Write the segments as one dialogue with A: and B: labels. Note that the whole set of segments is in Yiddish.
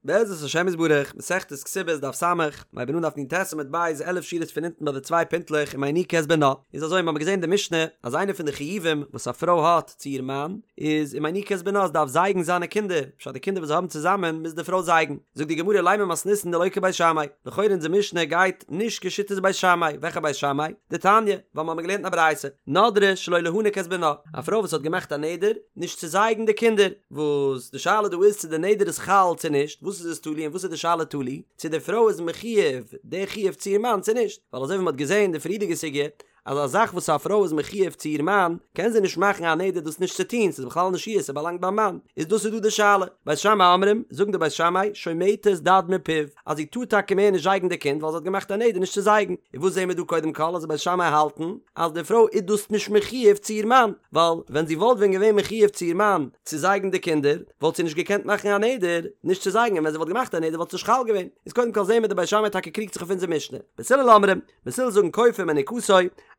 A: בעזרת השם יתברך, מסכת כתובות דף ס', מ'הייבן אן דף נ"ט עמוד ב', 11 שורות פון אונטן ביי די צוויי פינטלעך ומיניקה את בנה. איז אזוי, מ'האמיר געזען אין די משנה אז איינע פון די חיובים וואס א פרוי האט צו איר מאן איז ומיניקה את בנה, זי דארף זייגן זיינע קינדער, פשט די קינדער וואס זיי האבן צוזאמען מוז די פרוי זייגן. זאגט די גמרא לימא מתניתין דלא כבית שמאי, לכאורה אונזער משנה גייט נישט כשיטת בית שמאי, וועלכע בית שמאי? דתניא, ווייל מ'האמיר געלערנט אין א ברייתא, נדרה שלא להניק את בנה, א פרוי וואס האט געמאכט א נדר נישט צו זייגן די קינדער, וואס די שאלה דא איז צו די נדר איז חל צו נישט, וואס איז עס תלוי און וואס איז די שאלה תלוי, צו די פרוי איז מחיוב די חיוב צו איר מאן צו נישט, ווייל אזוי ווי מ'האט געזען אין די פריערדיגע סוגיא אז א זאך וואס א פרוי איז מחיוב צו איר מאן קען זי נישט מאכן א נדר דאס נישט צו טון, ס'איז בכלל נישט איר, ס'באלאנגט ביים מאן, איז דאס איז דא די שאלה, בית שמאי אומרים, זאגן די בית שמאי, שומטת דד מפיו, אז זי טאר טאקע מער נישט זייגן די קינד ווייל זי האט געמאכט א נדר נישט צו זייגן, און וואס זעהן מיר דא קודם כל אז די בית שמאי האלטן אז די פרוי איז דאס נישט מחיוב צו איר מאן, ווייל ווען זי וואלט ווען געווען מחיוב צו איר מאן צו זייגן די קינדער וואלט זי נישט געקענט מאכן א נדר נישט צו זייגן און ווען זי וואלט געמאכט א נדר וואלט עס נישט חל געווען, איז קודם כל זעהן מיר די בית שמאי טאקע קריגט זיך אויף אונזער משנה, בית הלל אומרים, בית הלל זאגן כופה מניקתו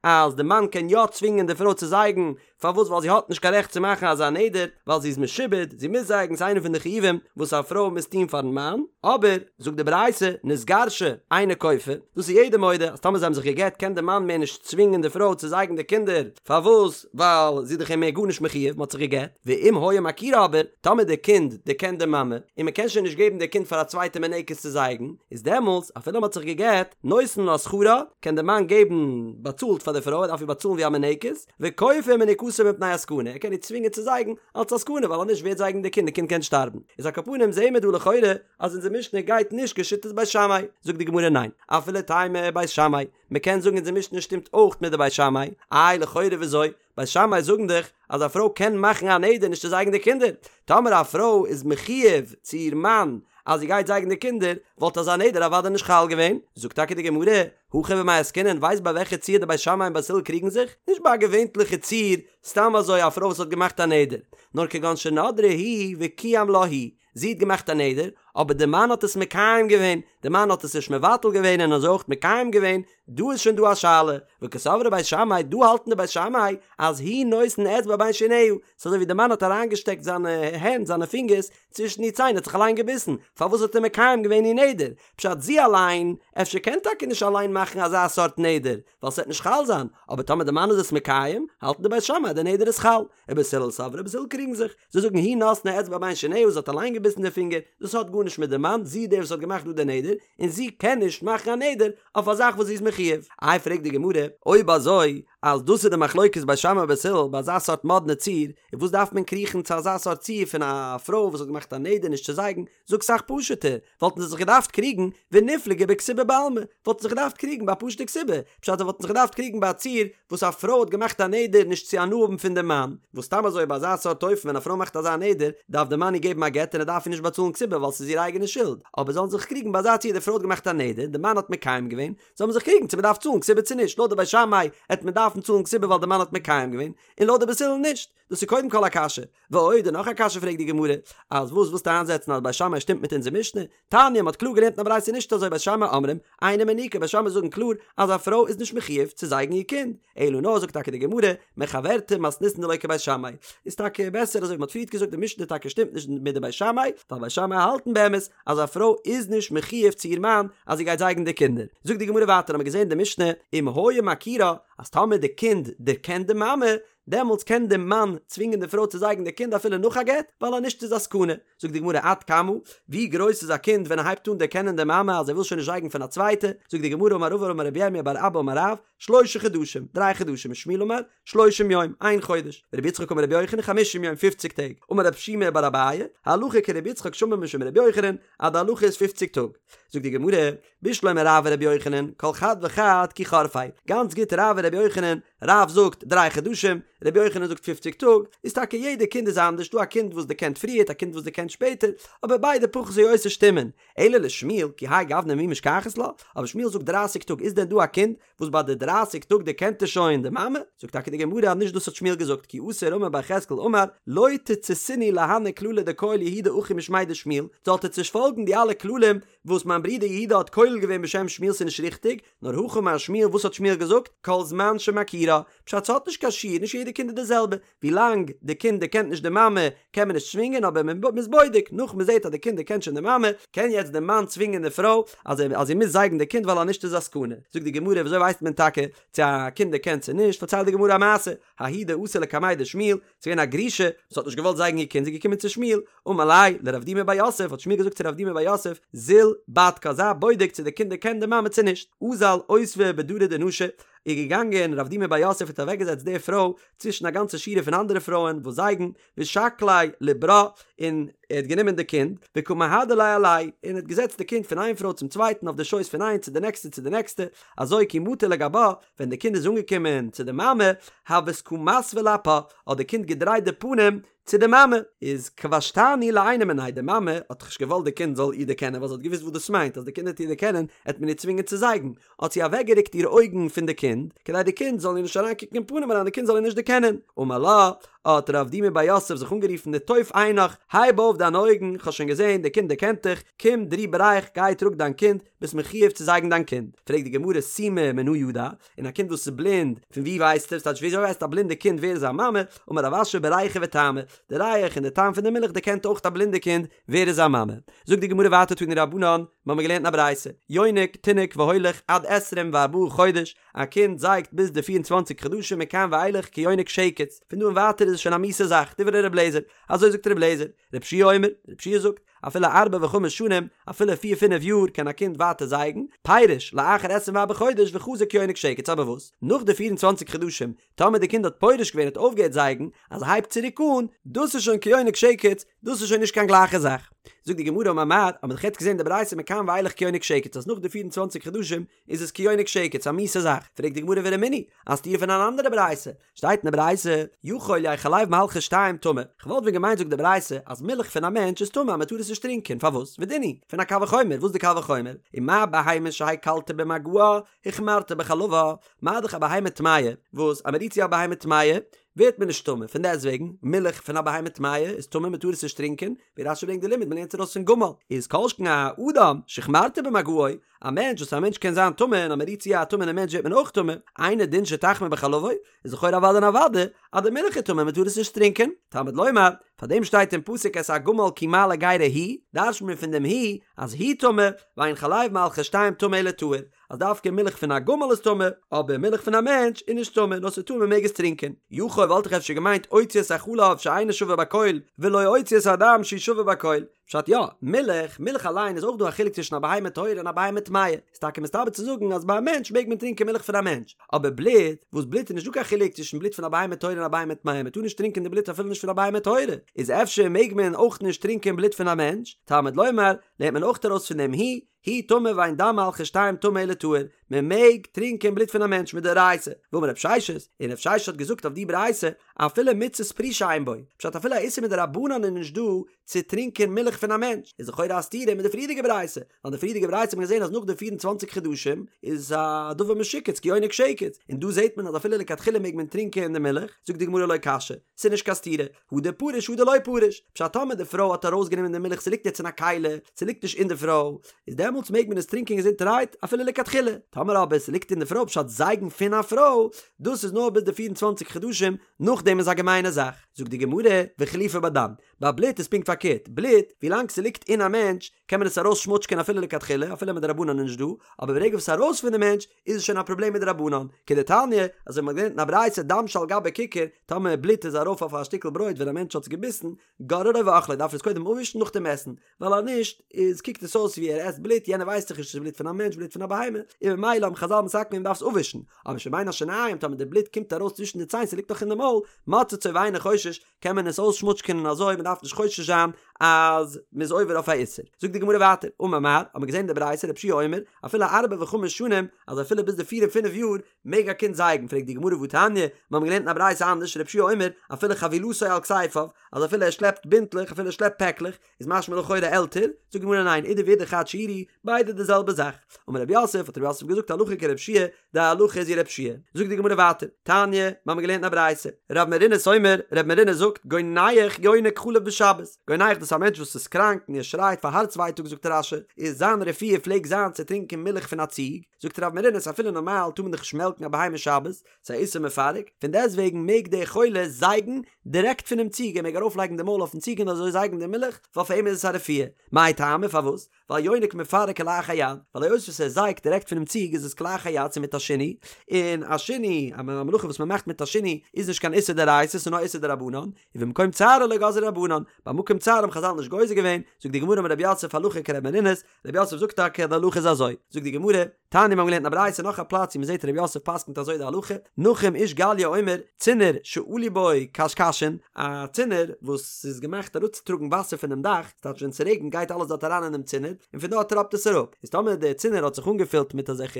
A: אז די מאן קען יא צווינגען די פרוי צו זייגן פארוואס ווייל זי האט נישט קיין רעכט צו מאכן אזא נדר, ווייל זי איז משועבד, זי מוז זייגן, ס'איז איינע פון די חיובים וואס א פרוי מוז טון פארן מאן, אבער, זאגט די ברייתא, נתגרשה, אינו כופה, דאס איז יעדער מודה, אז טאמער זיי האבן זיך גע'גט קען די מאן מער נישט צווינגען די פרוי צו זייגן די קינדער, פארוואס ווייל זי איז דאך אים מער גארנישט מחיוב, מ'האט זיך גע'גט, ואם היה מכירה אבער, טאמער די קינד דערקענט די מאמע, און מ'קען שוין נישט געבן די קינד פאר א צווייטע מינקת צו זייגן, איז דעמאלטס, אפילו מ'האט זיך גע'גט, נותן לה שכרה, קען די מאן געבן באצאלט פאר די פרוי, ער דארף איר באצאלן ווי א מינקת, וכופה מניקתו מפני הסכנה, ער קען איר צווינגען צו זייגן אלץ א סכנה ווייל אז נישט ווער וועט זייגן די קינד, די קינד קען שטארבן. איז על כל פנים זעהן מיר דא לכאורה אז אונזער משנה גייט נישט כשיטת בית שמאי, זאגט די גמרא ניין, אפילו תימא בית שמאי, מען קען זאגן אונזער משנה שטימט אויך מיט די בית שמאי, איי לכאורה וויאזוי? בית שמאי זאגן דאך אז א פרוי קען מאכן א נדר נישט צו זייגן די קינדער, טאמער א פרוי איז מחיוב צו איר מאן אז זי גייט זייגן די קינדער, וואלט אזא נדר אוודאי נישט חל געווען, זאגט טאקע די גמרא, הכא במאי עסקינן, ווייסט ביי וועלכע ציור די בית שמאי און בית הלל קריגן זיך? נישט ביי א געווענטליכע ציור, סתם אזוי א פרוי וואס האט געמאכט א נדר, נאר כגון שנדרה היא וקיים לה הוא, זי האט געמאכט א נדר, אבער די מאן האט עס מקיים געווען, די מאן האט עס נישט מבטל געווען און אזוי אויך מקיים געווען, דא איז שוין דא א שאלה, וקסברי בית שמאי, דא האלטן די בית שמאי אז הוא נותן אצבע בין שיניה, ס'איז אזוי ווי די מאן האט אריינגעשטעקט זיינע הענט, זיינע פינגערס, צווישן איר ציין, האט זיך אליין געביסן, פארוואס האט ער מקיים געווען איר נדר? פשט זי אליין, אפשר קען טאקע נישט אליין מאכן אזא סארט נדר, ווייל ס'וועט נישט חל זיין, אבער טאמער די מאן איז עס מקיים, האלטן די בית שמאי אז די נדר איז חל, ובית הלל סברי בית הלל קריגן זיך, זיי זאגן היא נתנה אצבע בין שיניה זי האט אליין געביסן די פינגער, דאס האט גארנישט מיט די מאן, זי איז דער וואס האט געמאכט דא די נדר, און זי קען נישט מאכן א נדר אויף א זאך וואס זי איז מחיוב. איי פרעגט די גמרא, אויב אזוי אז דאס איז די מחלוקת בית שמאי ובית הלל ביי אזא סארט מאדנע ציור, איז וואס דארף מען קריכן צו אזא סארט ציור פון א פרוי וואס האט געמאכט א נדר נישט צו זייגן, זאג סאך פשוט'ער, וואלטן זיי זיך געדארפט קריגן וניפלגו בכתובה בעלמא, וואלטן זיך געדארפט קריגן ביי א פשוט'ע כתובה, פשט זיי וואלטן זיך געדארפט קריגן ביי א ציור וואס א פרוי האט געמאכט א נדר נישט צו הנאה האבן פון דעם מאן, וואס סתם אזוי ביי אזא סארט אופן ווען א פרוי מאכט אזא נדר דארף דער מאן איר געבן א גט און ער דארף איר נישט באצאלן כתובה ווייל ס'איז איר אייגענע שולד, אבער זאלן זיך קריגן ביי אזא ציור די פרוי האט געמאכט א נדר, די מאן האט מקיים געווען, זאל מען זיך קריגן צו מען דארף צאלן כתובה צו נישט, לויט די בית שמאי העט מען דארפן צאלן כתובה ווייל די מאן האט מקיים געווען, און לויט די בית הלל נישט. דאס איז קודם כל א קשיא. ועוד, און נאך א קשיא פרעגט די גמרא, אז וואס ווילסטו איינזעצן אז בית שמאי שטימט מיט אונזער משנה? תניא, מ'האט קלאר געלערנט אין א ברייתא נישט אזוי בית שמאי אומרים, אינה מניקה, בית שמאי זאגן קלאר אז א פרוי איז נישט מחיוב צו זייגן איר קינד, אלא נאר זאגט טאקע די גמרא, מחוורתא מתניתין דלא כבית שמאי, איז טאקע בעסער אזוי ווי מ'האט פריערט געזאגט די משנה טאקע שטימט נישט מיט די בית שמאי, ווייל בית שמאי האלטן באמת אז א פרוי איז נישט מחיוב צו איר מאן אז זי גייט זייגן די קינדער. זאגט די גמרא ווייטער האמיר געזען די משנה, אם היה מכירה, אז טאמער די קינד דערקענט די מאמע, דעמאלטס קען די מאן צווינגען די פרוי צו זייגן די קינד אפילו נאך א גט, ווייל אז נישט איז א סכנה. זאגט די גמרא עד כמה, ווי גרויס איז א קינד ווען ער הייבט אן דערקענען די מאמע אז ער וויל שוין נישט זייגן פון א צווייטע, זאגט די גמרא אמר רבא אמר רבי ירמיה בר אבא אמר רב, שלשה חדשים, דריי חדשים, ושמואל אמר, שלושים יום, איין חודש, ורבי יצחק אמר רבי יוחנן, חמישים יום, פופציג טעג, אמר רב שימי בר אביי, הלכה כרבי יצחק שאמר משום רבי יוחנן, אז די הלכה איז פופציג טאג. זאגט די גמרא, בשלמא רב ורבי יוחנן, כל חד וחד כי חורפיה, גאנץ גוט רב און רבי יוחנן, רב זאגט דריי חדשים, רבי יוחנן זאגט פופציג טאג, איז טאקע יעדע קינד איז אנדערש, דא א קינד וואס דערקענט פריערט א קינד וואס דערקענט שפעטער, אבער ביידע פחות או יותר שטימען, אלא לשמואל, כי האי גוונא מי משכחת לה, אבער שמואל זאגט דרייסיג טאג, איז דען דא א קינד וואס ביי די דרייסיג טאג דערקענט ער שוין די מאמע? זאגט טאקע די גמרא אז נישט דאס האט שמואל געזאגט, כי אתא רמי בר יחזקאל אמר, לא תציתינהו להני כללי דכייל יהודה אחי משמיה דשמואל, זאלט עטס נישט פאלגן די אלע כללים וואס מיין ברודער יהודה האט כולל געווען בשם שמואל ס'איז נישט ריכטיג, נאר הכי אמר שמואל וואס האט שמואל געזאגט? כל זמן שמכירה, פשט ס'האט נישט קיין שיעור, נישט יעדע. די קינד איז די זעלבע, ווילאנג די קינד דערקענט נישט די מאמע קען מען נישט צווינגען אבער מען איז בודק, נאך מען זעט אז די קינד דערקענט שוין די מאמע, קען יעצט די מאן צווינגען די פרוי אז אז זי מוז זייגן די קינד ווייל אז נישט איז א סכנה. זאגט די גמרא וויאזוי ווייסט מען טאקע צו א קינד דערקענט צו נישט, פארציילט די גמרא א מעשה, ההיא דאתא לקמיה דשמואל, ס'איז געווען א גרושה וואס האט נישט געוואלט זייגן איר קינד, זי איז געקומען צו שמואל, אמר ליה לרב דימי בר יוסף, האט שמואל געזאגט צו רב דימי בר יוסף, זיל בדקה, זיי בודק צו די קינד דערקענט די מאמע צו נישט, אזל אותבה בדרי דנשי, איז געגאנגען רב דימי בר יוסף האט אוועקגעזעצט די פרוי צווישן א גאנצע שורה פון אנדערע פרויען וואס זייגן, ושקליה לברה, און ער האט גענומען די קינד, וקא מהדר ליה עלייהו, און האט געזעצט די קינד פון איין פרוי צום צווייטן אויף די שויס פון איין צו די נעקסטע צו די נעקסטע, אזוי כי מטא לגבה, ווען די קינד איז אנגעקומען צו די מאמע, הות קא מסוי לאפה, האט די קינד געדרייט די פנים צו די מאמע, איז כבשתני לעינא מיניה, די מאמע האט נישט געוואלט די קינד זאל איר דערקענען ווייל זי האט געוואוסט וואס דאס מיינט אז די קינד וועט איר דערקענען עט מען איר צווינגען צו זייגן, האט זי אוועקגערוקט איר אויגן פון די קינד, כדי די קינד זאל איר נישט אריינקוקן אין פנים אריין, די קינד זאל איר נישט דערקענען. אמר לה, האט רב דימי בר יוסף זיך אנגערופן נטוף עינך, הייב אויף דיינע אויגן, כ'האב שוין געזען, די קינד דערקענט דיך, קום דרי בריך, גיי טראג דיין קינד, ביסט מחויב צו זייגן דיין קינד. פרעגט די גמרא סומא מנא ידע, און א קינד וואס איז בלינד, פון וואו ווייסט ער? ס'טייטש וויאזוי ווייסט א בלינדע קינד ווער איז זיין מאמע? אמר רב אשי בריחא וטעמא, די ריח און די טעם פון די מילך דערקענט אויך א בלינדע קינד ווער איז זיין מאמע. זאגט די גמרא ווייטער תנו רבנן, מיר האבן געלערנט אין א ברייתא, יונק תינוק והולך עד עשרים וארבעה חודש, א קינד זייגט ביז די פיר און צוואנציג חדשים מכאן ואילך כיונק שקץ, פון דא און ווייטער איז עס שוין א מיאוסע זאך, דברי ר' אליעזר, אזוי זאגט ר' אליעזר, ר' יהושע אומר, ר' יהושע זאגט, אפילו ארבע וחמש שנים, אפילו פיר פינף יאר קען א קינד ווייטער זייגן, פירש, לאחר עשרים וארבעה חודש וחזר כיונק שקץ, אבער וואס, נאך די פיר און צוואנציג חדשים, טאמער די קינד האט פורש געווען האט אויפגעהערט זייגן, אז ער הייבט צוריק אן, דאס איז שוין כיונק שקץ, דאס איז שוין נישט קיין גלייכע זאך. זאגט די גמרא אמר מר, האט מען דאך יעצט געזען די ברייתא מכאן ואילך כיונק שקץ אז נאך די פיר און צוואנציג חדשים איז עס כיונק שקץ א מיאוסע זאך, פרעגט די גמרא ורמינהי, א סתירה פון אן אנדערע ברייתא, שטייט אין די ברייתא, יכול יהא חלב מהלכי שתים טמא, כ'וואלט ווען געמיינט זאגט די ברייתא אז מילך פון א מענטש איז טמא אז מ'טאר עס נישט טרינקען, פארוואס? ודין הוא, פון א קל וחומר, וואס איז די קל וחומר? ומה בהמה שהקלת במגעה, החמרת בחלבה, מה דאך א בהמה טמאה, וואס אז מ'רירט צו א בהמה טמאה, ווערט מען נישט טמא, פון דעסט וועגן, מילך פון א בהמה טמאה איז טמא מ'טאר עס נישט טרינקען, ווי רש"י ברענגט די לימוד מ'לערנט עס ארויס פון גמל, איז כל שכן א אדם שהחמרת במגעו, א מענטש וואס א מענטש קען זיין טמא און אז מ'רירט צו א טמא'נע מענטש ווערט מען אויך טמא, אינו דין שתחמיר בחלבו, איז לכאורה אוודאי און אוודאי אז די מילך איז טמא מ'טאר עס נישט טרינקען, תלמוד לומר, פאר דעם שטייט אין פסוק את הגמל כי מעלה גרה הוא, דרש'נט מען פון דעם הוא אז הוא טמא, ואין חלב מהלכי שתים טמא אלא טהור, אז דווקא מילך פון א גמל איז טמא, אבער מילך פון א מענטש איז נישט טמא, נאר ס'איז טהור מ'מעג עס טרינקען. יכול וואלט איך אפשר געמיינט אוציא את החלב שאינו שווה בכל, ולא אוציא את הדם שהוא שווה בכל. פשט יא, מילך, מילך אליין איז אויך דא א חילוק צווישן א בהמה טהורה און א בהמה טמאה, איז טאקע מסתבר צו זאגן אז ביי א מענטש מעג מען טרינקען מילך פון א מענטש, אבער בלוט, וואס בלוט איז נישט דא קיין חילוק צווישן בלוט פון א בהמה טהורה און א בהמה טמאה, מען טאר נישט טרינקען די בלוט אפילו נישט פון א בהמה טהורה, איז אפשר מעג מען אויך נישט טרינקען בלוט פון א מענטש, תלמוד לומר, לערנט מען אויך ארויס פון דעם הוא, הוא טמא ואין דם מהלכי שתים טמא אלא טהור, מען מעג טרינקען בלוט פון א מענטש מדאורייתא, ואמר רב ששת, און רב ששת האט געזאגט אויף די ברייתא, אפילו מצות פרישה אין בו, פשט אפילו א איסור מדרבנן איז נישט דא צו טרינקען מילך פון א מענטש, איז לכאורה א סתירה מיט די פריערדיגע ברייתא, ווייל אין די פריערדיגע ברייתא האט מען געזען אז נאך די פיר און צוואנציג חדשים איז א דבר משוקץ כיונק שקץ, און דא זעט מען אז אפילו לכתחילה מעג מען טרינקען די מילך, זאגט די גמרא לא קשיא, ס'איז נישט קיין סתירה, הא דפריש הא דלא פריש, פשט טאמער די פרוי האט ארויסגענומען די מילך ס'ליגט יעצט אין א כלי, ס'ליגט נישט אין די פרוי, איז דעמאלטס מעג מען עס טרינקען געזונטערהייט אפילו לכתחילה, טאמער אבער ס'ליגט אין די פרוי פשט זייגן פון א פרוי, דאס איז נאר ביז די פיר און צוואנציג חדשים, נאכדעם איז א געמיינע זאך. זאגט די גמרא, וחילופא בדם, ביי בלוט איז פונקט פארקערט, בלוט, ווילאנג ס'ליגט אין א מענטש, קען מען עס ארויס שמוטשקען אפילו לכתחילה, אפילו מדרבנן איז נישט דא, אבער ברגע וואס ס'איז ארויס פון די מענטש, איז עס שוין א פראבלעם מדרבנן, כדתניא, אזוי ווי מ'האט געלערנט אין א ברייתא דם שעל גבי כיכר, טאמער בלוט איז ארויף אויף א שטיקל ברויט ווען א מענטש האט עס געביסן, גוררו ואוכלו, דארף ער עס קודם אפווישן נאכדעם עסן, ווייל אז נישט איז קוקט עס אויס ווי ער עסט בלוט, יענער ווייסט דאך נישט צו ס'איז בלוט פון א מענטש בלוט פון א בהמה, און ממילא האבן חזל מתקן געווען מ'דארף עס אפווישן, אבער שבין השיניים טאמער די בלוט קומט ארויס צווישן די ציין ס'ליגט נאך אין די מויל, מוצצו ואינו חושש, קען מען עס אויסשמוטשקענען און אזוי מ'דארף נישט חושש זיין אז מ'איז עובר אויף א איסור. זאגט די גמרא ווייטער, אמר מר, האט מען געזען אין די ברייתא רבי יהושע אומר, אפילו ארבע וחמש שנים, אז אפילו ביז די פיר און פינף יאר, מעג א קינד זייגן, פרעגט די גמרא והתניא, מיר האבן געלערנט אין א ברייתא אנדערש, רבי יהושע אומר, אפילו חבילתו על כתפיו, אז אפילו ער שלעפט בינטלעך, אפילו ער שלעפט פעקלעך, איז משמע לכאורה עלטער, זאגט די גמרא ניין, אידי ואידי חד שיעורא, ביידע די זעלבע זאך. אמר רב יוסף, האט רב יוסף געזאגט הלכה כרבי יהושע, די הלכה איז ווי רבי יהושע. זאגט די גמרא ווייטער, תניא, מיר האבן געלערנט אין א ברייתא, רב מרינוס אומר, רב מרינוס זאגט, גונח יונק חלב בשבת, גונח דאס איז וואס א מענטש וואס איז קראנק און ער שרייט פאר הארץ ווייטאג זאגט רש"י איז זיין רפואה פלעגט זיין צו טרינקען מילך פון א ציג, זאגט רב מרינוס אפילו נארמאל טאר מען דאך נישט מעלקן א בהמה שבת, ס'איז א איסור מפרק, פון דעסטוועגן מעג דער חולה זייגן דירעקט פונעם ציג, ער מעג ארויפלייגן די מויל אויפן ציג און אזוי זייגן די מילך, ווייל פאר אים איז עס א רפואה. מאי טעמא פארוואס? ווייל יונק מפרק כלאחר יד, ווייל היות וואס ער זייגט דירעקט פונעם ציג איז עס כלאחר יד ס'איז מיט א שינוי, און א שינוי, א מלאכה וואס מ'מאכט מיט א שינוי איז נישט קיין איסור דאורייתא ס'איז נאר איסור דרבנן, ובמקום צערו לא גזרו רבנן, ביי מקום צער האבן חזל נישט גוזר געווען, זאגט די גמרא אמר רב יוסף הלכה כר' מרינוס, רב יוסף זאגט טאקע אז די הלכה איז אזוי, זאגט די גמרא, תניא מיר האבן געלערנט אין א ברייתא נאך א פלאץ ווי מ'זעט רב יוסף פסק'נט אזוי די הלכה, נחום איש גליא אומר, צינור שעלו בו קשקשין, א צינור וואס איז געמאכט אראפצוטראגן וואסער פונעם דאך, ס'טייטש ווען ס'רעגנט גייט אלעס דארט אריין אינעם צינור, און פון דארט טראפט עס אראפ, איז טאמער דער צינור האט זיך אנגעפילט מיט אזעלכע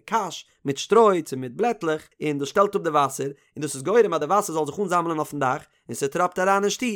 A: קש, מיט שטרוי צו מיט בלעטלעך, און דאס שטעלט אפ די וואסער, און דאס איז גורם אז די וואסער זאל זיך אנזאמלען אויפן דאך, און ס'טראפט אריין אין שטוב,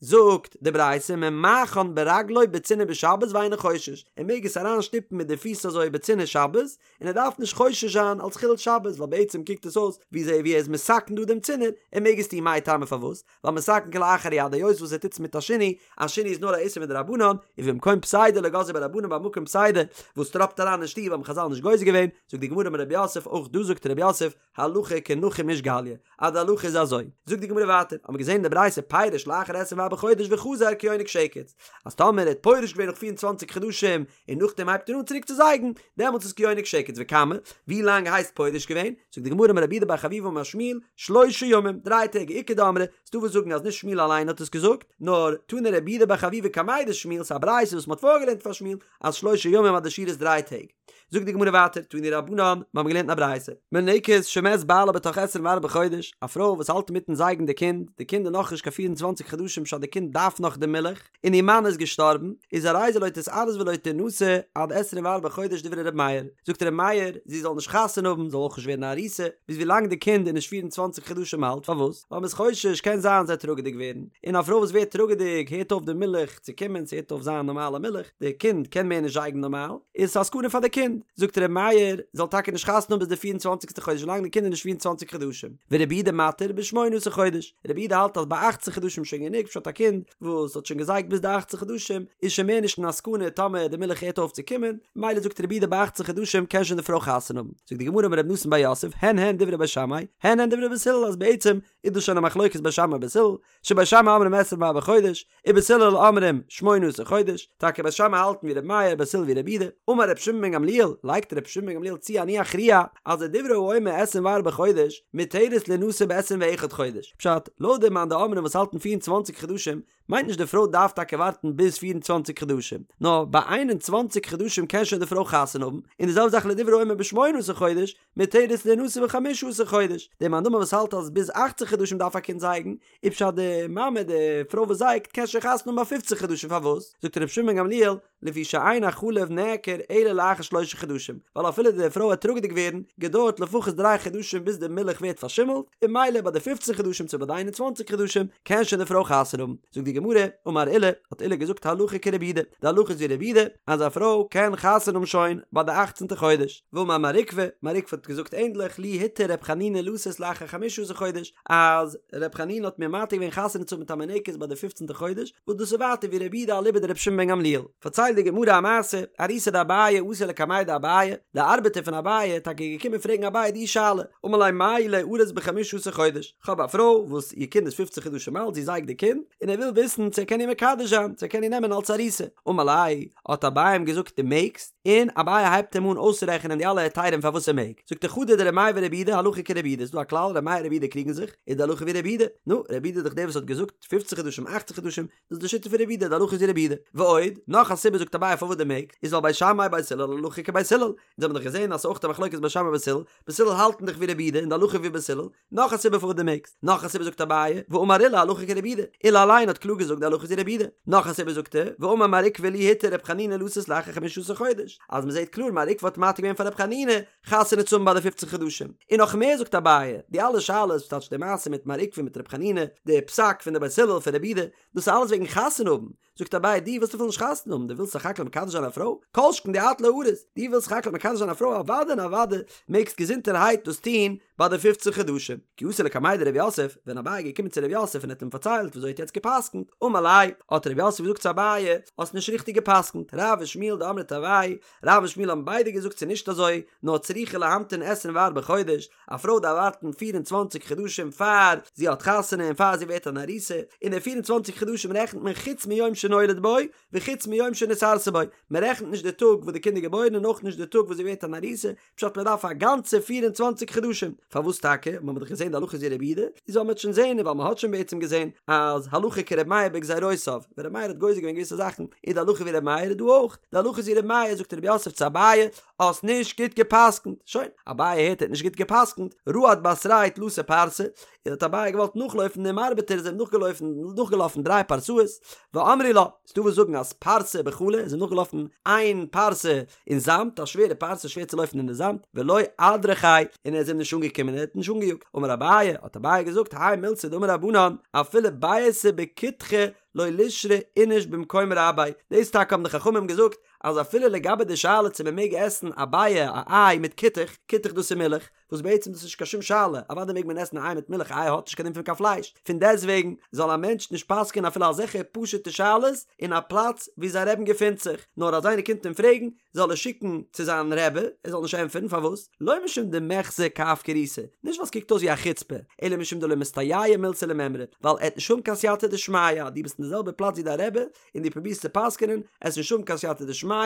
A: זאגט די ברייתא ממעכן ברגלו בצינור בשבת ואינו חושש, ער מעג עס אריין שטופן מיט די פיס אזוי בצינור שבת, און ער דארף נישט חושש זיין אלס חילול שבת, ווייל בעצם קוקט עס אויס ווי אזוי ווי ער איז מתקן דא דעם צינור, ער מעג עס טון מאי טעמא פארוואס? ווייל מתקן כלאחר יד היות וואס ער טוט עס מיט א שינוי, א שינוי איז נאר א איסור מדרבנן, ובמקום פסידא לא גזרו ביה רבנן ביי מקום פסידא וואס טראפט אריין אין שטוב האבן חזל נישט גוזר געווען, זאגט די גמרא אמר רב יוסף אויך דא זאגט רב יוסף הלכה כנחום איש גליא, אז די הלכה איז אזוי. זאגט די גמרא ווייטער, האבן מיר געזען אין די ברייתא פירש לאחר עשרים וארבעה חודש וחזר כיונק שקץ, אז טאמער ער האט פורש געווען נאך פיר און צוואנציג חדשים און נאכדעם הייבט ער אן צוריק צו זייגן, דעמאלטס איז כיונק שקץ, וכמה, ווי לאנג הייסט פורש געווען? זאגט די גמרא אמר רב יהודה בר חביבא אמר שמואל, שלשה ימים, דריי טעג, איכא דאמרי, ס'דא וואס זאגן אז נישט שמואל אליין האט עס געזאגט, נאר תנא רב יהודה בר חביבא קמיה דשמואל, ס'איז א ברייתא וואס מ'האט פארגעלערנט פאר שמואל, אז שלשה ימים אז די שיעור איז דריי טעג. זאגט די גמרא ווייטער, תנו רבנן, מיר האבן געלערנט אין א ברייתא, מניקת שמת בעלה בתוך עשרים וארבעה חודש, א פרוי וואס האלט אינמיטן זייגן די קינד, די קינד איז נאכנישט קיין פיר און צוואנציג חדשים פשט די קינד דארף נאך די מילך, און איר מאן איז געשטארבן, איז הרי זו לא תתארס ולא תנשא עד עשרים וארבעה חודש דברי ר' מאיר, זאגט ר' מאיר, זי זאל נישט חתונה האבן, זאל אויך נישט ווערן א ארוסה, ביז ווילאנג די קינד איז נישט פיר און צוואנציג חדשים אלט, פארוואס? ווייל מ'איז חושש קען זיין זי וועט טראגעדיג ווערן, און א פרוי וואס ווערט טראגעדיג הערט אויף די מילך צו קומען, ס'הערט אויף זיין נארמאלע מילך, די קינד קען מער נישט זייגן נארמאל, איז עס א סכנה פאר די קינד, זאגט ר' מאיר, זאל טאקע נישט חתונה האבן ביז די פיר און צוואנציגסטע חודש ווילאנג די קינד איז נישט פיר און צוואנציג חדשים, ורבי יהודה מתיר בשמונה עשר חודש, רבי יהודה האלט אז ביי אכצן חדשים איז שוין גענוג פשט א קינד וואס האט שוין געזייגט ביז די אכצן חדשים איז שוין מער נישט אין א סכנה טאמער די מילך הערט אויף צו קומען, ממילא זאגט רבי יהודה ביי אכצן חדשים קען שוין די פרוי חתונה האבן. זאגט די גמרא אמר רב נתן בר יוסף, הן הן דברי בית שמאי, הן הן דברי בית הלל אז בעצם איז דאס שוין א מחלוקת בית שמאי בית הלל, שבית שמאי אומרים עשרים וארבעה חודש, ובית הלל אומרים שמונה עשר חודש, טאקע בית שמאי האלטן ווי ר' מאיר, בית הלל ווי רבי יהודה, אמר ר' שמעון בן גמליאל, לייגט ר' שמעון בן גמליאל צו אני אכריע, אז לדברי האומר עשרים וארבעה חודש, מותרת לינשא בעשרים ואחד חודש, פשט, לויט די מאן דאמרים וואס האלטן פיר און צוואנציג חדשים, מיינט נישט די פרוי דארף טאקע ווארטן ביז 24 חדשים, נאר ביי 21 חדשים קען שוין די פרוי חתונה האבן, און די זעלבע זאך לדברי האומר בשמונה עשר חודש, מותרת לינשא בחמשה עשר חודש, די מאן דאמר וואס האלט אז ביז אכצן חדשים דארף א קינד זייגן, איז פשט די מאמע די פרוי וואס זייגט קען שוין חתונה האבן ביי פופצן חדשים פארוואס? זאגט רבי שמעון בן גמליאל, לפי שאין החלב נעכר אלא לאחר שלשה חדשים, ווייל אפילו די פרוי וועט טראגעדיג ווערן, געדויערט לפחות דריי חדשים ביז די מילך ווערט פארשימלט, און ממילא ביי די פופצן חדשים צו ביי די איין און צוואנציג חדשים קען שוין די פרוי חתונה האבן. זאגט די גמרא, אמר עולא, האט עולא געזאגט הלכה כרבי יהודה, די הלכה איז ווי רבי יהודה, אז א פרוי קען חתונה האבן שוין ביי די אכצנטע חודש. ואמר מר עוקבא, מר עוקבא האט געזאגט ענדליך, לי התיר ר' חנינא לשאת לאחר חמשה עשר חודש, אז ר' חנינא האט מיר מתיר געווען חתונה צו האבן מיט א מינקת ביי די פופצנטע חודש, וואס דאס איז ווייטער ווי רבי יהודה אליבא דרבי שמעון בן גמליאל. פארציילט די גמרא א מעשה, אריסא דאביי אתא לקמיה דאביי, די ארבעטער פון אביי איז טאקע געקומען פרעגן אביי די שאלה, אמר ליה מהו ליארס בחמשה עשר חודש, כ'האב א פרוי וואס איר קינד איז פופצן חדשים אלט, זי זייגט די קינד, און ער וויל וויסן צו ער קען איר מקדש זיין, צו ער קען איר נעמען אלס ארוסה. אמר ליה, האט אביי אים געזאגט דו מעגסט, און אביי הייבט אים אן אויסצורעכענען די אלע היתרים פארוואס ער מעג, זאגט ער חדא דר' מאיר ור' יהודה הלכה כר' יהודה, איז דא א כלל ר' מאיר ר' יהודה קריגן זיך, איז די הלכה ווי ר' יהודה, נו, ר' יהודה איז דאך דער וואס האט געזאגט פופצן חדשים אכצן חדשים, דאס איז די שיטה פון ר' יהודה, די הלכה איז ווי ר' יהודה. ועוד, נאך א סיבה זאגט אביי פארוואס דו מעגסט, איז ווייל בית שמאי בית הלל הלכה כבית הלל, אונז האבן דאך געזען אז ס'איז אויך א מחלוקת בית שמאי בית הלל, בית הלל האלטן דאך ווי ר' יהודה און די הלכה ווי בית הלל, נאך א סיבה פארוואס דו מעגסט, נאך א סיבה זאגט אביי, ואמר עולא הלכה כרבי יהודה, עולא אליין האט קלאר געזאגט די הלכה איז ווי רבי יהודה, נאך א סיבה זאגט ער, ואמר מר עוקבא לי התיר רב חנינא לשאת לאחר חמשה עשר חודש, אז מ'זעט קלאר מר עוקבא האט מתיר געווען פאר רב חנינא חתונה צו האבן ביי די פופצן חדשים, און נאך מער זאגט אביי, די אלע שאלות, וואס טייטש די מעשה מיט מר עוקבא מיט רב חנינא, די פסק פון די בית הלל פון רבי יהודה, דאס איז אלעס וועגן חתונה האבן, זאגט אביי דו ווילסט אפילו נישט חתונה האבן, דו ווילסט סך הכל מקדש זיין א פרוי? כל שכן דאת לארוס, דו ווילסט סך הכל מקדש זיין א פרוי אוודאי און אוודאי מעגסט געזונטערהייט דאס טון ביי די פופצן חדשים. כי אתא לקמיה דרב יוסף, ווען אביי איז געקומען צו רב יוסף און האט אים פארציילט וויאזוי ער האט יעצט גע'פסק'נט, אמר ליה, האט רב יוסף געזאגט צו אביי, האסט נישט ריכטיג גע'פסק'נט, רב ושמואל דאמרי תרוייהו, רב און שמואל האבן ביידע געזאגט ס'איז נישט אזוי, נאר צריכה להמתין עשרים וארבעה חודש, א פרוי דארף ווארטן פיר און צוואנציג חדשים פאר זי האט חתונה און פאר זי ווערט אן ארוסה, און די פיר און צוואנציג חדשים רעכנט מען חוץ מיום שנולד בו וחוץ מיום שנתארסה בו, מען רעכנט נישט די טאג וואס די קינד איז געבוירן און אויך נישט די טאג וואס זי ווערט אן ארוסה, פשט מען דארף א גאנצע פיר און צוואנציג חדשים, פארוואס טאקע? מ'האמיר דאך געזען די הלכה איז ווי רבי יהודה, איז וועל מען שוין זען און ווייל מען האט שוין בעצם געזען אז הלכה כר' מאיר בגזירותיו, ווען ר' מאיר האט גוזר געווען געוויסע זאכן איז די הלכה ווי ר' מאיר איז דא אויך די הלכה איז ווי ר' מאיר זאגט ר' יוסף צו אביי האסט נישט גוט גע'פסק'נט, שוין, אביי הערט ער האט נישט גוט גע'פסק'נט, רהט בתריה תלתא פרסי, און האט אביי געוואלט נאכלויפן דעם ארבעטער איז אים נאכגעלויפן נאכגעלאפן דריי פרסאות, ואמרי לה, ס'דא וואס זאגן אז פרסה בחלא איז אים נאכגעלאפן איין פרסה אין זאמד, א שווערע פרסה שווער צו לויפן אין די זאמד, ולא אדרכיה, און ער איז אים נישט אנגעקומען ער האט נישט אנגעיאגט, אמר אביי, האט אביי געזאגט, האי מילתא דאמור רבנן, אפילו ביעתא בכותחא לא לישרי איניש במקום רביה, דאס טאקע האבן די חכמים געזאגט, אז אפילו לגבי די שאלה צו מען מעג עסן א ביעא א איי מיט כותח, כותח דאס איז מילך, וואס בעצם דאס איז נישט קיין שום שאלה, אוודאי מעג מען עסן א איי מיט מילך, א איי האט נישט קיין דין פון קיין פלייש, פון דעסטוועגן זאל א מענטש נישט פסק'ענען אפילו אזעלכע פשוט'ע שאלות אין א פלאץ וואו זיין רעבן געפינט זיך, נאר אז איינער קומט אים פרעגן זאל ער שיקן צו זיין רבי, ער זאל נישט ענטפערן, פארוואס? לא משום דמיחזי כאפקירותא, נישט ווייל ס'קוקט אויס ווי א חוצפה, אלא משום דלא מסתייעא מילתא למימרא, ווייל ער וועט נישט האבן קיין סייעתא דשמיא, דו ביסט אין די זעלבע פלאץ ווי דיין רבי, און דו פרובירסט צו פסק'ענען, וועסט נישט האבן קיין סייעתא דשמיא,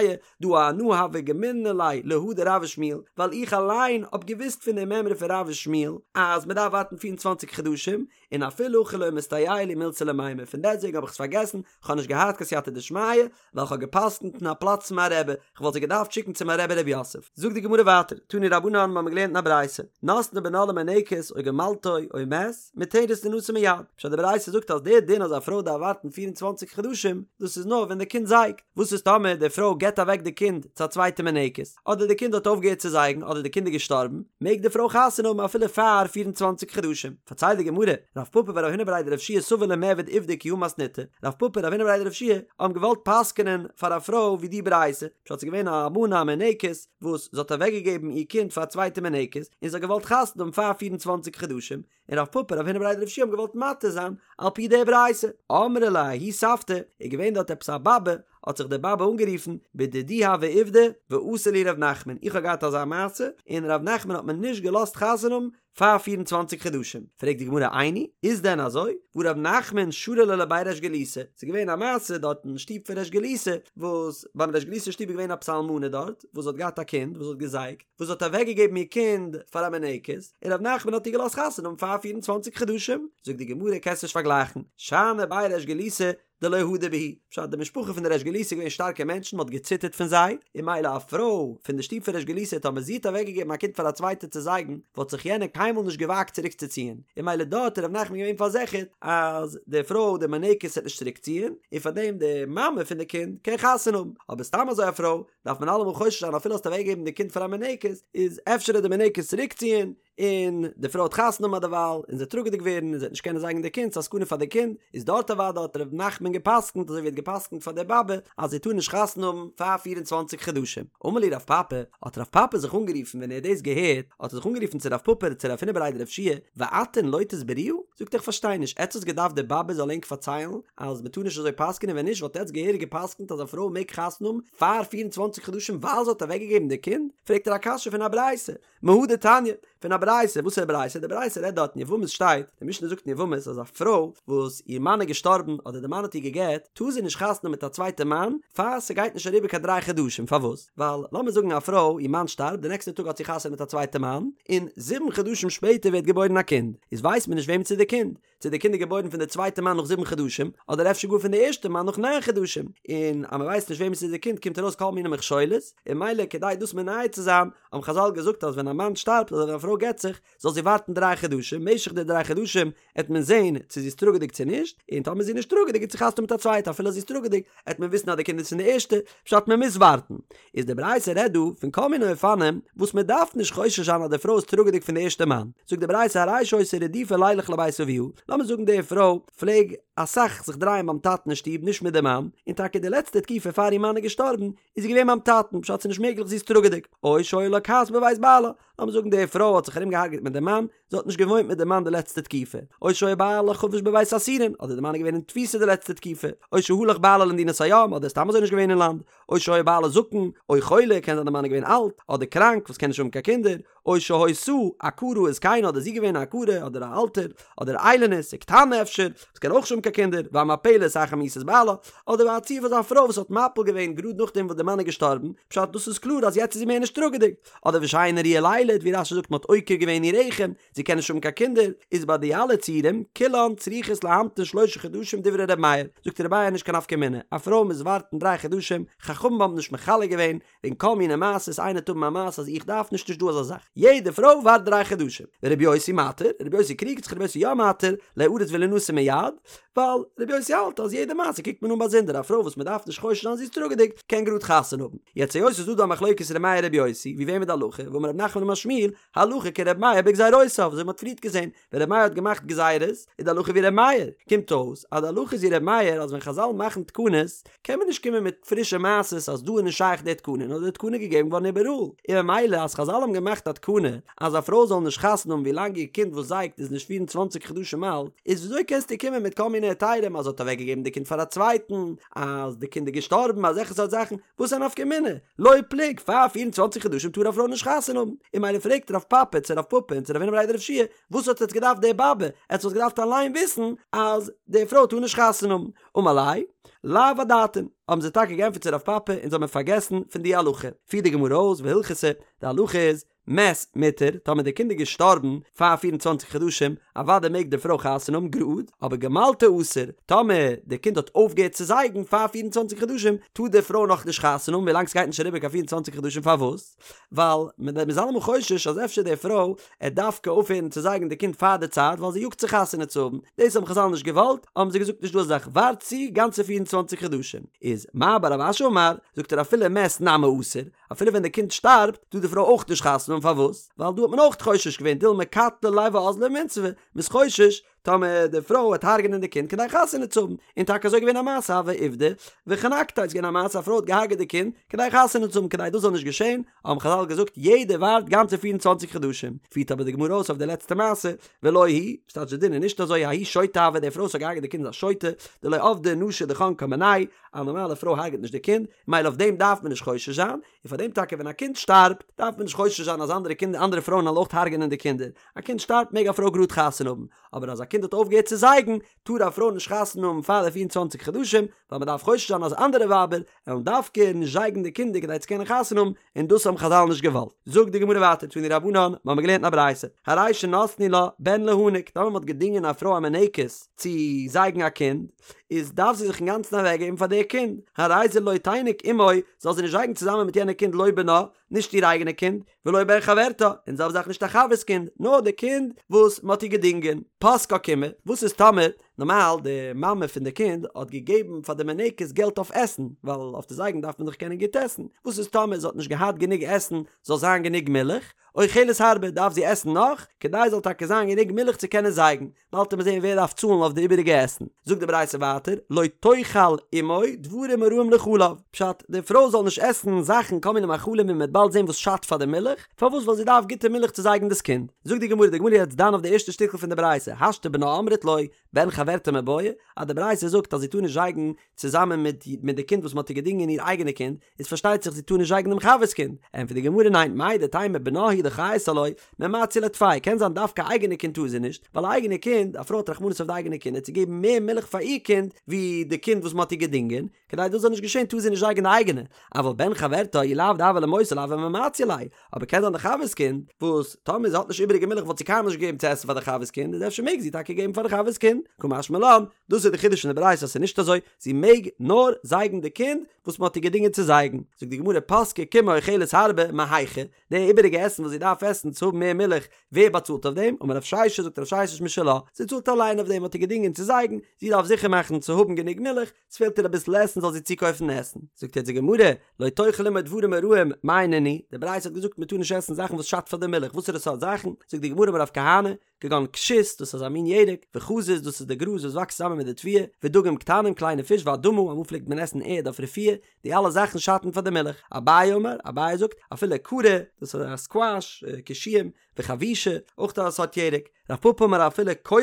A: דהא אנא הוה גמילנא ליה להא דרב ושמואל, ווייל איך אליין האב געוואוסט פון די מימרא פון רב ושמואל אז מען דארף ווארטן פיר און צוואנציג חדשים, און אפילו הכי לא מסתייעא לי מילתא למימר, פון דעסטוועגן האב איך עס פארגעסן, כ'האב נישט געהאט קיין סייעתא דשמיא, ווייל כ'האב גע'פסק'נט אין א פלאץ צו מיין רבי, כ'וואלט זיי געדארפט שיקן צו מיין רבי ר' יוסף. זאגט די גמרא ווייטער, תנו רבנן, מ'האמיר געלערנט אין א ברייתא, נתנה בנה למינקת או גמלתו או מת, מותרת לינשא מיד. פשט די ברייתא זאגט אז דער דין אז א פרוי דארף ווארטן פיר און צוואנציג חדשים, דאס איז נאר ווען די קינד זייגט. וואס איז טאמער די פרוי געבט אוועק די קינד צו א צווייטע מינקת, אדער די קינד האט אויפגעהערט צו זייגן אדער די קינד איז געשטארבן, מעג די פרוי חתונה האבן אפילו פאר 24 חדשים. פארציילט די גמרא, רב פפא ורב הונא בריה דרב יהושע סבור למיעבד עובדא כי הא מתניתא, רב פפא און רב הונא בריה דרב יהושע האבן געוואלט פסק'נען פאר א פרוי ווי די ברייתא, פשט ס'איז געווען א אלמנה א מינקת וואס זי האט אוועקגעגעבן איר קינד פאר א צווייטע מינקת און זי האט געוואלט חתונה האבן פאר 24 חדשים, און רב פפא רב הונא בריה דרב יהושע האבן געוואלט מתיר זיין על פי די ברייתא. אמרה ליה ההיא סבתא, איז געווען דארט עפעס א באבע, האט זיך די באבע אנגערופן, בדידי הוה עובדא, ואסר לי ר' נחמן, איך האב געהאט אזא מעשה, און ר' נחמן האט מיר נישט געלאזט חתונה האבן פאר פיר און צוואנציג חדשים. פרעגט די גמרא איני, איז דען אזוי? והא ר' נחמן שרא ליה לבי ריש גלותא, ס'איז געווען א מעשה דארט אין שטוב פון ריש גלותא, וואס ביים ריש גלותא שטוב איז געווען עפעס א אלמנה דארט, וואס האט געהאט א קינד וואס האט געזייגט, וואס האט אוועקגעגעבן איר קינד פאר א מינקת, און ר' נחמן האט איר געלאזט חתונה האבן פאר פיר און צוואנציג חדשים, זאגט די גמרא קענסט נישט פארגלייכן, שאני בי ריש גלותא דלא הדור בהו, פשט די משפחה פון די ריש גלותא איז געווען שטארקע מענטשן מען האט געציטערט פון זיי, און ממילא א פרוי פון די שטוב פון ריש גלותא טאמער זי האט אוועקגעגעבן א קינד פאר א צווייטע צו זייגן וואלט זיך יענער קיינמאל נישט געוואגט צוריק צו ציען, און ממילא דארט איז ר' נחמן געווען פארזיכערט אז די פרוי די מינקת וועט נישט צוריק ציען, און פארדעם די מאמע פון די קינד קען חתונה האבן, אבער סתם אזוי א פרוי דארף מען אלעמאל חושש זיין אפילו האסט אוועקגעגעבן די קינד פאר א מינקת איז אפשר וועט די מינקת צוריקציען און די פרוי וועט חתונה האבן דערווייל און זי וועט טראגעדיג ווערן און זי וועט נישט קענען זייגן די קינד ס'איז א סכנה פאר די קינד איז דארט אוודאי האט ר' נחמן געפסקנט אזוי ווי ער האט געפסקנט פאר די באבע אז זי טאר נישט חתונה האבן פאר פיר און צוואנציג חדשים. אמר להו רב פפי, האט רב פפי זיך אנגערופן ווען ער האט דאס געהערט האט ער זיך אנגערופן צו רב פפא צו רב הונא בריה דרב יהושע ואתון לא תסברוה? זאגט ער איך פארשטיי נישט עטס האטס געדארפט די באבע זאל ענק פארציילן אז מ'טאר נישט אזוי פסק'נען ווען נישט וואלט עטס געהעריג געפסקנט אז א פרוי מעג חתונה האבן פאר פיר און צוואנציג חדשים ווייל זי האט אוועקגעגעבן די קינד? פרעגט ער א קשיא פון א ברייתא, מהא דתניא, פון א ברייתא, וואס איז א ברייתא? די ברייתא רעדט דארט אין יבמות שטייט, די משנה זאגט אין יבמות אז א פרוי וואס איר מאן איז געשטארבן אדער די מאן האט איר גע'גט, טאר זי נישט חתונה האבן מיט א צווייטע מאן פאר ס'גייט נישט אריבער קיין דריי חדשים, פארוואס? ווייל לאמיר זאגן א פרוי איר מאן שטארבט די נעקסטע טאג האט זי חתונה מיט א צווייטע מאן, און זיבן חדשים שפעטער ווערט געבוירן א קינד, איז ווייסט מען נישט וועמענס איז די קינד, צו די קינד איז געבוירן פון די צווייטע מאן נאך זיבן חדשים, אדער אפשר גאר פון די ערשטע מאן נאך ניין חדשים, און אז מען ווייסט נישט וועמענס איז די קינד קומט ארויס כל מיני מכשולות, און ממילא כדי דאס מונע צו זיין, האבן חזל געזאגט אז ווען א מאן שטארבט אדער ווען א פרוי גט זיך. זיך, זאל זי ווארטן דריי חדשים, משך די דריי חדשים עט מען זען צו זי איז טראגעדיג צו נישט, און טאמער זי איז נישט טראגעדיג עט זי חתונה האבן מיט א צווייטע אפילו אז זי איז טראגעדיג עט מען וויסן אז די קינד איז פון די ערשטע, פשט מען מוז ווארטן. איז די ברייתא רעדט דא פון כל מיני אופנים וואס מען דארף נישט חושש זיין אז די פרוי איז טראגעדיג פון די ערשטע מאן, זאגט די ברייתא הרי שהיתה רדופה לילך לבית אביה, לאמיר זאגן די פרוי פלעג אסאך זיך דרייען ביים טאטן אין שטוב נישט מיט די מאן, און טאקע די לעצטע תקופה פאר איר מאן איז געשטארבן איז זי געווען ביים טאטן, פשט ס'איז נישט מעגליך זי איז טראגעדיג, או שהיה לה כעס בבית בעלה, לאמיר זאגן די פרוי האט זיך ארום געהארגעט מיט די מאן, זי האט נישט געוואוינט מיט די מאן די לעצטע תקופה, או שהיה בעלה חבוש בבית האסורין, אדער די מאן איז געווען אין תפיסה די לעצטע תקופה, או שהלך בעלה למדינת הים, אדער סתם אזוי נישט געווען אין לאנד, או שהיה בעלה זקן, או חולה, קען זיין די מאן איז געווען אלט, אדער קראנק וואס קען נישט האבן קיין קינדער, או שהיתה עקרה וזקנה אדער זי געווען א עקרה אדער א אלטער, אדער איילונית, וקטנה אפשר, וואס קען אויך נישט האבן קיין קינדער, והמפלת אחר מיתת בעלה, אדער א ציור פון אזא פרוי וואס האט מפיל געווען גראד נאכדעם וואס די מאן איז געשטארבן, פשט דאס איז קלאר אז יעצט איז זי מער נישט טראגעדיג, אדער ושאינה ראויה לילד, ווי רש"י זאגט מען האט עוקר געווען איר רחם, זי קען נישט האבן קיין קינדער, איז ביי די אלע ציורים, כולן צריכות להמתין שלושה חדשים דברי ר' מאיר, זאגט ר' מאיר נישט קיין נפקא מינה, א פרוי מוז ווארטן דריי חדשים, חכמים האבן נישט מחלק געווען, וועגן כל מיני מעשות, איינער וועט האבן א מעשה אז איך דארף נישט נישט דא אזא זאך, יעדע פרוי ווארט דריי חדשים, ורבי יוסי מתיר, רבי יוסי קריגט זיך רבי יוסי יא מתיר, ליארס ולינשא מיד, ווייל רבי יוסי האלט אז יעדע מעשה קוקט מען אן באזונדער, א פרוי וואס מען דארף נישט חושש זיין זי איז טראגעדיג קען גראד חתונה האבן, יעצט היות ס'איז דא דא א מחלוקת ר' מאיר רבי יוסי, ווי וועם איז די הלכה, ואמר רב נחמן אמר שמואל, הלכה כר' מאיר בגזירותיו, אזוי ווי מ'האט פריערט געזען, ווען ר' מאיר האט געמאכט גזירות, איז די הלכה ווי ר' מאיר, קומט אויס אז די הלכה איז ווי ר' מאיר אז ווען חזל מאכן תקנות, קען מען נישט קומען מיט פרישע מעשות אז דא איז נישט שייך די תקנה, נאר די תקנה איז געגעבן געווארן איבעראל, און ממילא אז חזל האבן געמאכט א תקנה אז א פרוי זאל נישט חתונה האבן ווי לאנג איר קינד וואס זייגט איז נישט פיר און צוואנציג חדשים אלט, איז וויאזוי קענסטו קומען מיט כל מיני היתרים אז זי האט אוועקגעגעבן די קינד פאר א צווייטן, אז די קינד איז געשטארבן, אזעלכע סארט זאכן, וואס איז א נפקא מינה? לא פלוג, פאר פיר און צוואנציג חדשים טאר א פרוי נישט חתונה האבן, און ממילא פרעגט רב פפא צו רב פפא און צו רב הונא בריה דרב יהושע, וואס האט עטס געדארפט די באבע, עטס וואלט געדארפט אליין וויסן אז די פרוי טאר נישט חתונה האבן, אמר ליה, לאו אדעתין, האבן זיי טאקע געענטפערט צו רב פפא אונז האמיר פארגעסן פון די הלכה, פירט די גמרא אויס והלכתא, די הלכה איז, מת מותר, טאמער די קינד איז געשטארבן פאר פיר און צוואנציג חדשים, אוודאי מעג די פרוי חתונה האבן גראד, אבער גמלתו אסור, טאמער די קינד האט אויפגעהערט צו זייגן פאר פיר און צוואנציג חדשים, טאר די פרוי נאכנישט חתונה האבן ווילאנג ס'גייט נישט אריבער קיין פיר און צוואנציג חדשים פארוואס? ווייל מ'איז אלעמאל חושש אז אפשר די פרוי עט דווקא אויפהערן צו זייגן די קינד פאר די צייט ווייל זי יאגט זיך חתונה צו האבן, דאס האבן חזל נישט געוואלט, האבן זיי געזאגט נישט דא אזא זאך ווארט צו גאנצע פיר און צוואנציג חדשים, איז מר בר רב אשי אמר, זאגט ער אפילו מת נמי אסור, אפילו ווען די קינד שטארבט טאר די פרוי אויך נישט חתונה האבן פארוואס? ווייל דא האט מען אויך חושש געווען דילמא קטלא ליה ואזלא ומינסבא, מ'איז חושש טאמער די פרוי וועט הרג'נען די קינד כדי חתונה צו האבן, און טאקע אזוי געווען א מעשה הוה עובדא וחנקתיה איז געווען א מעשה א פרוי האט געהארגעט די קינד כדי חתונה צו האבן כדי דאס זאל נישט געשען האבן חזל געזאגט יעדער ווארט גאנצע פיר און צוואנציג חדשים, פירט אבער די גמרא אויס אויף די לעצטע מעשה ולא היא, ס'טייטש די דין איז נישט אזוי ההיא שוטה הוה די פרוי וואס האט געהארגעט די קינד איז א שוטה, דלא עבדה נשי דחנקה מיניה, א נארמאלע פרוי הרג'ט נישט די קינד, מילא אויף דעם דארף מען נישט חושש זיין, און פאר דעם טאקע ווען א קינד שטארבט דארף מען נישט חושש זיין אז אנדערע קינדער אנדערע פרויען וועלן אויך הרג'נען די קינדער, א קינד שטארבט מעג א פרוי גראד חתונה האבן, אבער אז א קינד האט אויפגעהערט צו זייגן טאר א פרוי נישט חתונה האבן פאר די פיר און צוואנציג חדשים, ווייל מען דארף חושש זיין אז אנדערע ווייבער וועלן דווקא נישט זייגן די קינדער כדי צו קענען חתונה האבן, און דאס האבן חזל נישט געוואלט. זאגט די גמרא ווייטער תנו רבנן, מיר האבן געלערנט אין א ברייתא, הרי שנתנו לה בן להניק, טאמער מען האט געדינגען א פרוי א מניקת צו זייגן א קינד, איז דארף זי זיך אינגאנצן אוועקגעבן פאר די קינד, הרי זה לא תיניק עמו, זאל זי נישט זייגן צוזאמען מיט יענע קינד לא בנה, נישט איר אייגענע קינד, ולא בן חברתה, און זעלבע זאך נישט א חבר'ס קינד, נאר די קינד וואס מען האט איר געדינגען. פסקה קימעא, וואס איז טאמער, נארמאל די מאמע פון די קינד האט געגעבן פאר די מניקת געלט אויף עסן, ווייל אויף די זייגן דארף מען דאך קענען גוט עסן, וואס איז טאמער זי האט נישט געהאט גענוג עסן זאל זיין גענוג מילך, אוכלת הרבה דארף זי עסן נאך, כדי זאל טאקע זיין גענוג מילך צו קענען זייגן, באלד וועט מען זען ווער דארף צאלן אויף די איבעריגע עסן. זאגט די ברייתא ווייטער, לא תאכל עמו דברים הרעים לחלב, פשט, די פרוי זאל נישט עסן זאכן כל מיני מאכלים ווי מען וועט באלד זען וואס שאדט פאר די מילך, פארוואס ווייל זי דארף גוטע מילך צו זייגן דאס קינד. זאגט די גמרא, די גמרא איז יעצט דן אויף די ערשטע שטיקל פון די ברייתא, השתא בנה אמרת לא, בן חברתה מיבעיא, אז די ברייתא זאגט אז זי טאר נישט זייגן צוזאמען מיט מיט די קינד וואס מען האט איר געדינגען איר אייגענע קינד, איז פארשטייט זיך זי טאר נישט זייגן דעם חבר'ס קינד, ענטפערט די גמרא ניין, מהו דתימא בנה הוא דחיית עילויה, ממציא לה טפי, קען זיין דווקא אייגענע קינד טאר זי נישט, ווייל א אייגענע קינד, א פרוי האט רחמנות אויף די אייגענע קינד צו געבן מער מילך פאר איר קינד ווי די קינד וואס מען האט איר געדינגען, כדי דאס זאל נישט געשען טאר זי נישט זייגן די אייגענע, אבל בן חברתה אי לאו דהוה למותר לאו ממציא ליה, אבער קען זיין די חבר'ס קינד, וואס טאמער זי האט נישט איבעריגע מילך וואלט זי קיינמאל נישט געגעבן צו עסן פאר די חבר'ס קינד, איז אפשר מעג זי טאקע געבן פאר די חבר'ס קינד, קא משמע משמע לן, דאס איז די חידוש פון די ברייתא אז ס'איז נישט אזוי, זי מעג נאר זייגן די קינד וואס מ'האט איר געדינגען צו זייגן. זאגט די גמרא פסקה קימעא אוכלת הרבה מהיכא, די איבעריגע עסן וואס זי דארף עסן צו האבן מער מילך, ווער באצאלט אויף דעם? אמר רב ששת, זאגט רב ששת משלה, זי צאלט אליין אויף דעם, מ'האט איר געדינגען צו זייגן, זי דארף זיכער מאכן צו האבן גענוג מילך, ס'פעלט איר אביסל עסן זאל זי צוקויפן עסן. זאגט יעצט די גמרא, לא תאכל אמו דברים הרעים מאי נינהו, די ברייתא האט געזאגט מ'טאר נישט עסן זאכן וואס שאדט פאר די מילך, וואסערע סארט זאכן? זאגט די גמרא אמר רב כהנא, כגון כשות, דאס איז א מין ירק, וחזיז, דאס איז די גראז וואס וואקסט צוזאמען מיט די תבואה, ודגים קטנים, קליינע פיש, ואדמה, אמאל פלעגט מען עסן ערד אויף רפואה, די אלע זאכן שאטן פאר די מילך. אביי אמר, אביי זאגט, אפילו קרא, דאס איז א סקוואש, קישואים, וחבישא, אויך א סארט ירק. רב פפא אמר אפילו קורא,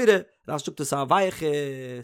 A: רש"י זאגט דאס איז א ווייעכע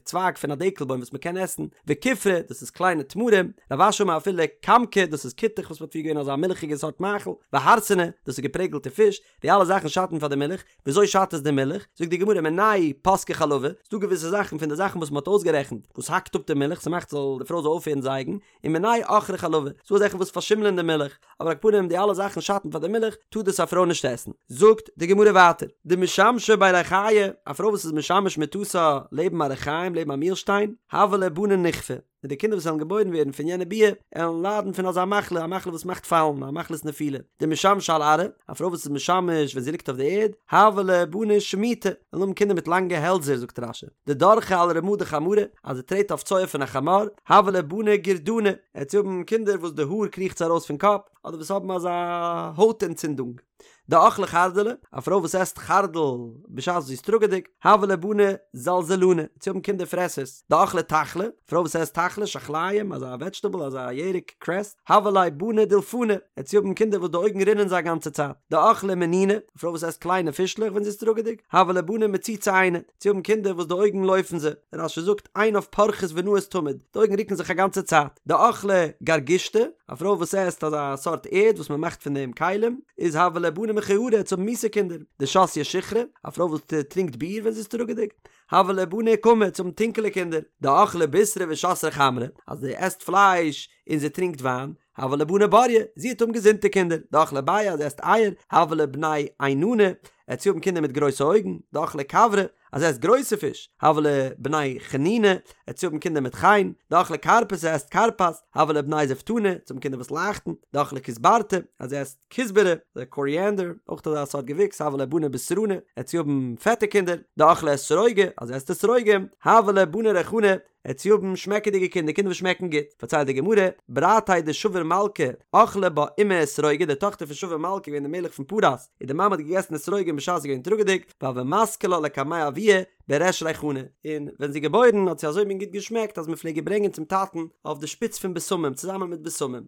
A: צווייג פון א דעקל בוים וואס מען קען עסן, וכופרא, דאס איז קליינע תמרים, רב אשי אמר אפילו כמכא, דאס איז כותח וואס מען האט פריער געווען אזא מילכיגע סארט מאכל, והרסנא, דאס איז געפרעגלטע פיש, די אלע זאכן שאטן פאר די מילך, וויאזוי שאדט עס די מילך? זאגט די גמרא מינייהו פסקי חלבא, ס'דא געוויסע זאכן פון די זאכן וואס מ'האט אויסגערעכנט וואס האקט אפ די מילך, ס'מאכט זאל די פרוי זאל אויפהערן זייגן, און מינייהו עכרי חלבא, ס'דא אזעלכע וואס פארשימלען די מילך, אבער על כל פנים די אלע זאכן שאטן פאר די מילך, טאר דאס א פרוי נישט עסן. זאגט די גמרא ווייטער, דמשמשא בי ריחיא, א פרוי וואס איז משמש מטתה לעבן א רחיים לעבן א מילשטיין, הוו לה בני נכפי, און די קינדער וואס וועלן געבוירן ווערן פון יענע ביאה, עלן ליידן פון אזא מחלה, א מחלה וואס מאכט פאלן, א מחלת נפילה. דמשמשא על ארעא, א פרוי וואס איז משמש ווען זי ליגט אויף די ערד, הוו לה בני שמיטי, וועלן האבן קינדער מיט לאנגע העלדזער, זאגט רש"י. דדרכה על רמא דחמרא, אז זי טרעט אויף צואה פון א חמור, הוו לה בני גורדני, עט זי האבן קינדער וואס די האר קריכט זיי ארויס פון קאפ, אדער וואס האבן אזא הויט אנטצינדונג. דאכלה חרדלא, א פרוי וואס עסט חרדל בשעת זי איז טראגעדיג, הוו לה בני זלזלני, עט זי האבן קינדער פרעסערס. דאכלה תחלי, א פרוי וואס עסט תחלי, שחליים, אזא וועדזשטעבל, אזא ירק, קרעס, הוו לה בני דולפני, עט זי האבן קינדער וואס די אויגן רינען זיי א גאנצע צייט. דאכלה מניני, א פרוי וואס עסט קליינע פישלעך ווען זי איז טראגעדיג, הוו לה בני מציצי עינא, עט זי האבן קינדער וואס די אויגן לויפן זיי. רש"י זאגט, עיניו פורחות ונעות תמיד, די אויגן רוקן זיך א גאנצע צייט. דאכלה גרגושתא, א פרוי וואס עסט אזא סארט ערד וואס מען מאכט פון דעם כלים, איז הוו לה בני מכוערי, עט זי האבן מיסע קינדער. דשתיא שיכרא, א פרוי וואס טרינקט ביר ווען זי איז טראגעדיג, הוו לה בני אוכמי, עט זי האבן טונקעלע קינדער. דאכלה בישרא ושתיא חמרא, אז זי עסט פלייש און זי טרינקט וויין, הוו לה בני בריי, זי עט האבן געזונטע קינדער. דאכלה ביעי, אז זי עסט אייער, הוו לה בני עינני, עט זי האבן קינדער מיט גרויסע אויגן. דאכלה כוורי, אז זי עסט גרויסע פיש, הוו לה בני חניני, עט זי האבן קינדער מיט חן, דאכלה כרפסא עסט כרפס, הוו לה בני זפתני, עט זי האבן קינדער וואס לייכטן, דאכלה כוסברתא, אז זי עסט כוסברה, די קאריענדער, אויך אזא סארט געוויקס, הוו לה בני בשרני, עט זי האבן פעטע קינדער, דאכלה אתרוגי, אז זי עסט אתרוגים, הוו לה בני ריחני, עט זי האבן שמעקעדיגע קינדער, קינדער וואס שמעקן גוט. פארציילט די גמרא, ברתיה דשבור מלכא, אכלה בה אימיה אתרוגי, די טאכטער פון שבור מלכא געווען די מלך פון פרס, און די מאמע האט געגעסן אתרוגים בשעת זי איז געווען טראגעדיג, והוה מסקי לה לקמיה אבוה בריש ריחני, און ווען זי איז געבוירן האט זי אזוי מין גוט געשמעקט אז מען פלעג איר ברענגען צום טאטן אויף די שפיץ פון בשמים צוזאמען מיט בשמים.